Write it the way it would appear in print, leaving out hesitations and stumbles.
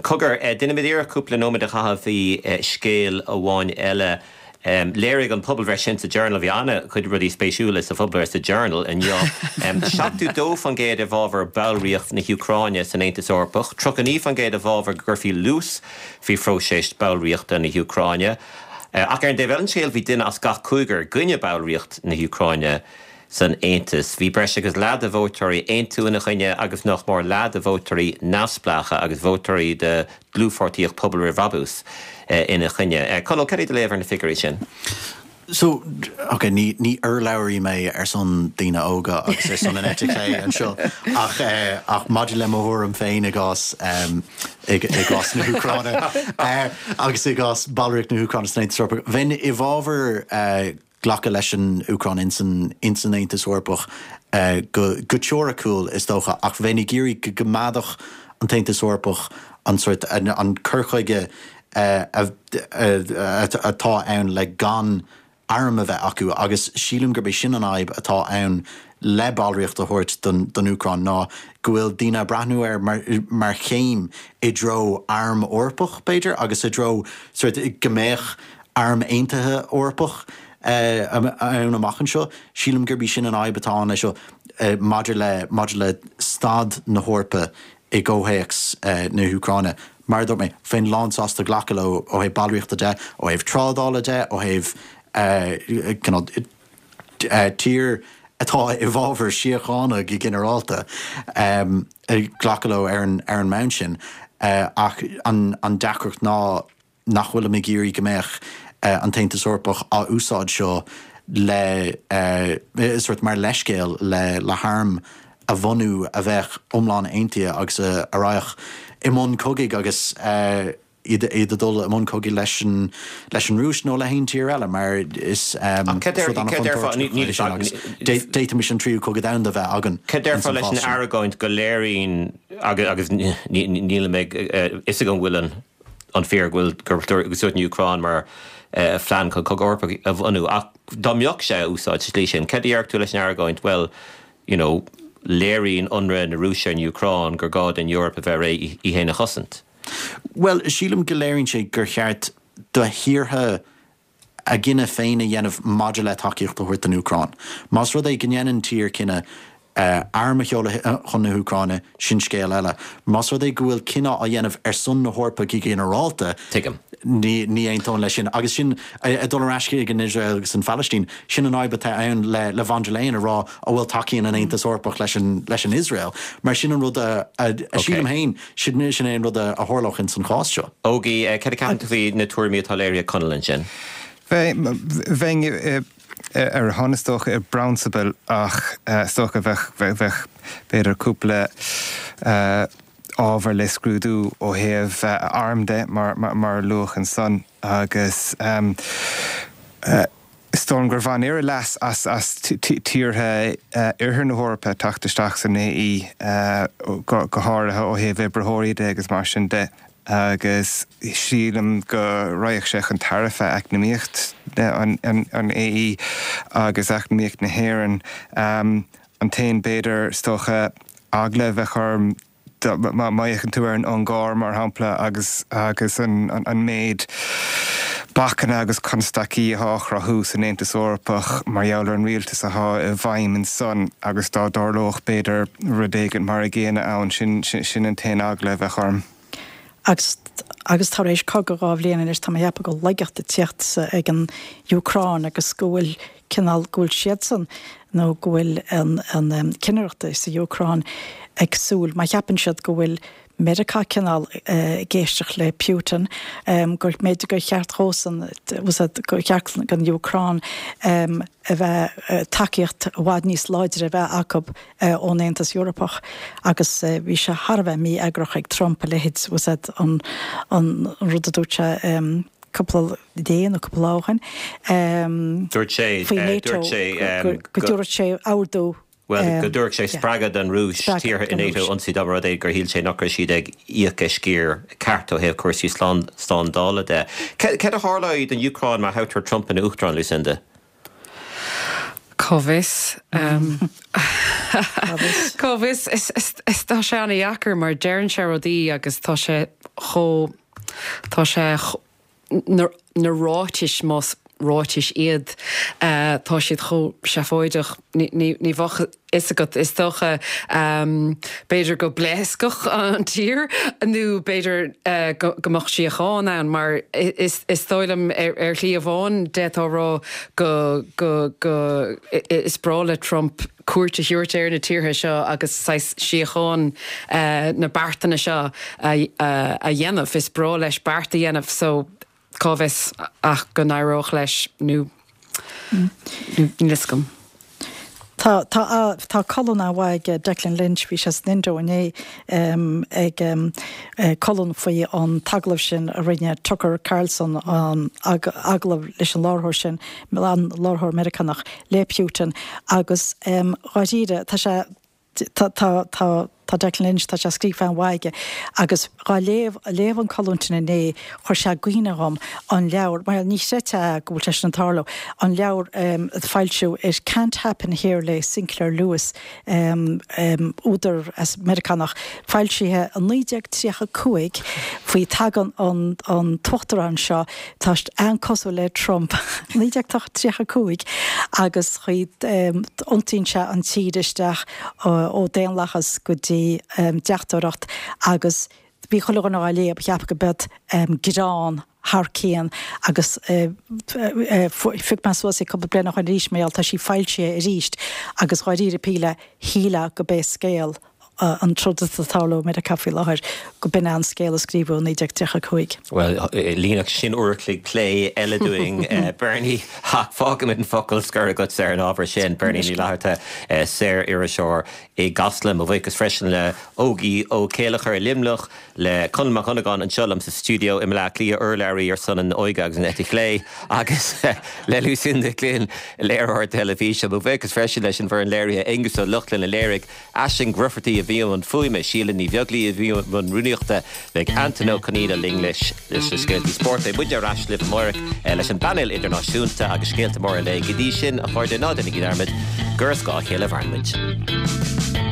Cogar, déanfaimid iarracht cúpla nóiméad a chaitheamh faoi scéal amháin eile. Léirigh an pobalbhreith sin sa Journal, bhí an-chuid rudaí spéisiúla sa phobalbhreith sa Journal inniu, 72% i bhfabhar ballraíocht na hÚcráine san Aontas Eorpach, 39% i bhfabhar go gcuirfí luas faoi phróiseas ballraíochta na hÚcráine. Ach ar an dtaobh eile den scéal, bhí duine as gach cúigear i gcoinne ballraíocht na hÚcráine san Aontas. Bhí breis agus leath de vótóirí Aontú ina choinne agus nach mór leath de vótóirí neamhspleácha agus vótóirí de Dlúthpháirtíocht Pobal Roimh Bhrabús ina choinne. Conall, cad é do léamh ar na figiúirí sin? So, ok, ní, ní urlabhraí mé ar son daoine óga agus ar son an eite chlé anseo ach, ach maidir le mo thuairim féin i gcás, i gcás na hÚcráine agus i gcás ballraíocht na hÚcráine san Aontas Eorpach, bheinn i bhfabhar glacadh leis an Úcráin ins an ins an Aontas Eorpach go go teoiriciúil is dócha ach bheinn ag iarraidh go gcoimeádfadh an tAontas Eorpach an sórt an cur chuige atá ann le gan airm a bheith acu agus sílim gurb é sin an fhadhb atá ann le ballraíocht a thabhairt don don Úcráin ná go bhfuil daoine ag breathnú air mar mar chéim i dtreo arm Eorpach b'fhéidir agus i dtreo sórt go mbeadh Arm Aontaithe Eorpach ann amach anseo. Sílim gurb í sin an fhadhb atá ann leis seo maidir le maidir le staid na hEorpa i gcomhthéacs na hÚcráine. Mar a dúirt mé, bheinn lánsásta glacadh leo ó thaobh ballraíochta de, ó thaobh trádála de, ó thaobh cineál tír atá i bhfabhar síochána go ginearálta, glacadh leo ar an ar an mbonn sin. Ach an deacracht ná nach bhfuilim ag iarraidh go mbeadh an tAontas Eorpach á úsáid seo le sórt mar leithscéal le le harm a bhunú a bheadh iomlán aontaithe agus a raghadh i mbun cogaidh agus iad iad ag dul i mbun cogaidh leis an leis an Rúis nó le haon tír eile mar is rud an-chontúirteach é sin agus d'fhéadfaimis an tríú cogadh domhanda a bheith againn Cad déarfá leis an argóint go léiríonn agus níl a fhios agam an bhfuil an an fíor go bhfuil gur úsáideadh an Úcráin mar phlean chun cogadh Eorpach a bhunú ach dá mbeadh sé á úsáid sa tslí sin, cad a déarfadh tú leis an argóint, bhuel, you know, léiríonn ionradh na Rúise ar an Úcráin gur gá don Eoraip a bheith réidh í féin a chosaint? Bhuel, sílim go léiríonn sé gur cheart do thíortha a gcinneadh féin a dhéanamh maidir le tacaíocht a thabhairt don Úcráin. Más rud é go ndéanann tír cinneadh arm a sheoladh chun na hÚcráine, sin scéal eile. Más rud é go bhfuil cinneadh á dhéanamh ar son na hEorpa go ginearálta, Tuigim. ní ní aontóinn leis sin. Agus sin, ag dul ar ais chuig an Iosrael agus an Phalaistín, sin an fhadhb atá ann le le von der Leyen a rá ó bhuel tacaíonn an Aontas Eorpach leis an leis an Iosrael. Mar sin an rud a a sílim féin, Sin sin é an rud a tharlódh ins an chás seo. Ógie, cad a ceapann tú faoi na tuairimí atá léirithe ag Conall ansin? Bheinn ar a shon is dócha i bprionsabal ach is dócha bheadh bheadh b'fhéidir cúpla ábhar le scrúdú ó thaobh arm de mar mar a luadh ansan agus Is dóigh liom gur bhain Éire leas as as tíortha oirthear na hEorpa teacht isteach san AE, go háirithe ó thaobh oibritheoirí de agus mar sin de, agus sílim go raghadh sé chun tairbhe eacnamaíocht an AE agus eacnamaíocht na hÉireann. An t-aon, b'fhéidir, is dócha, eagla a bheadh orm, Má fhéachann tú ar an Ungáir, mar shampla, agus agus an an méid bacanna agus constaicí atá á chruthú san Aontas Eorpach mar gheall ar an rialtas atá i bhfeidhm ansan agus dá dtarlódh, b'fhéidir, rud éigin mar a gcéanna ann, sin sin an t-aon eagla a bheadh orm. Agus agus tar éis cogadh 2 bhliain anois, tá mé ag ceapadh go bhfuil laigeacht ag tíocht ag an Úcráin agus go bhfuil cineál, go bhfuil siadsan nó go bhfuil an an cinnireacht sa Úcráin ag súil, má cheapann siad go bhfuil Meiriceá cineál ag éisteacht le Putin, gur mb'fhéidir gur cheart dhósan, gur cheart don Úcráin a bheith, tacaíocht i bhfad níos láidre a bheith acu ón Aontas Eorpach agus bhí sé thar a bheith mí-eagrach ag Trump a leithéid, an an rud a dúirt sé cúpla dé nó cúpla lá ó shin Dúirt sé, faoi NATO dúirt sé go dtabharfadh sé ordú. Bhuel, go dtabharfadh sé spreagadh don Rúis tíortha i NATO a ionsaí dá mba rud é gur shíl sé nach raibh siad ag íoc a sciar ceart ó thaobh cúrsaí slándála de. Céard a tharlóidh don Úcráin má thoghtar Trump ina Uachtarán, Lucinda? Cá bhfios? Cá bhfios? Is tá sé ana-dheacair mar deireann sé rudaí agus tá sé chomh, tá sé, na ráitis, más ráitis iad, tá siad chomh seafóideach, ní bheadh a fhios agat, is dócha, b'fhéidir go bpléascfadh an tír nó b'fhéidir go mbeadh síocháin ann mar is dóigh liom ar shlí amháin d'fhéadfá a rá go, go, go, is breá le Trump cuairt a thabhairt ar na tíortha seo agus saghas síocháin na beartanna seo a dhéanamh. Is breá leis beart a dhéanamh so cá bhfios ach go n-éireodh leis nó níl fhios agam. Tá, tá, tá colún an-mhaith ag Declan Lynch, bhí sé san Indo inné ag colún faoi an t-agallamh sin a rinne Tucker Carlson, an agallamh leis an láithreoir sin, an láithreoir Meiriceánach, le Putin agus dháiríre tá sé, tá, tá, tá, tá Declan Lynch, tá sé scríofa an-mhaith aige agus dhá léamh, léamh an colún sin inné, chuir sé i gcuimhne dhom an leabhar, bhuel ní chreidfeá go bhfuil sé sin ag tarlú, an leabhar a foilsíodh It Can't Happen Here le Sinclair Lewis, údar as Meiriceánach, foilsithe i 1935 faoi tagann an an t-uachtarán seo, tá an-cosúil le Trump, 1935 agus chaoi iontaíonn sé an tír isteach ó daonlathas go dtí deachtóireacht agus bhí chuile dhuine á léamh, cheap go b'iod greann thar cionn agus phioc mé suas í cúpla bliain ó shoin arís mar gheall tá sí foilsithe arís agus dháiríre píre shílfeá go b'é scéal an troid atá ag tarlú i Meiriceá faoi láthair, go b'in é an scéal a scríobhadh i 1935. Bhuel, líonfadh sin uair a chloig plé eile dúinn, Bernie, ach fágfaimid an focal scoir agatsa ar an ábhar sin. Bernie Ní Fhlatharta, saor-iriseoir i gCasla. Mo bhuíochas freisin le Ógie Ó Céilleachair i Luimneach, le Conall Mac Dhonnagáin anseo liom sa stiúideo i mBleá Cliath, urlabhraí ar son an óige agus an eite chlé, agus le Lucinda Glynn, léiritheoir teilifíse. Mo bhuíochas freisin leis an bhfoireann léirithe, Aengus Ó Lochlainn a léirigh, Aisling Grufferty a bhí i mbun fuaime, Síle Ní Bheaglaoí a bhí i mbun rúnaíochta, beidh Antain Ó Conaola linn leis na scéaltaí spóirt. Beidh muidne ar ais libh amárach leis an bpainéal idirnáisiúnta agus scéalta móra an lae. Go dtí sin, a chairde, ná déanaigí dearmad gur ar scáth a chéile a mhaireann muid.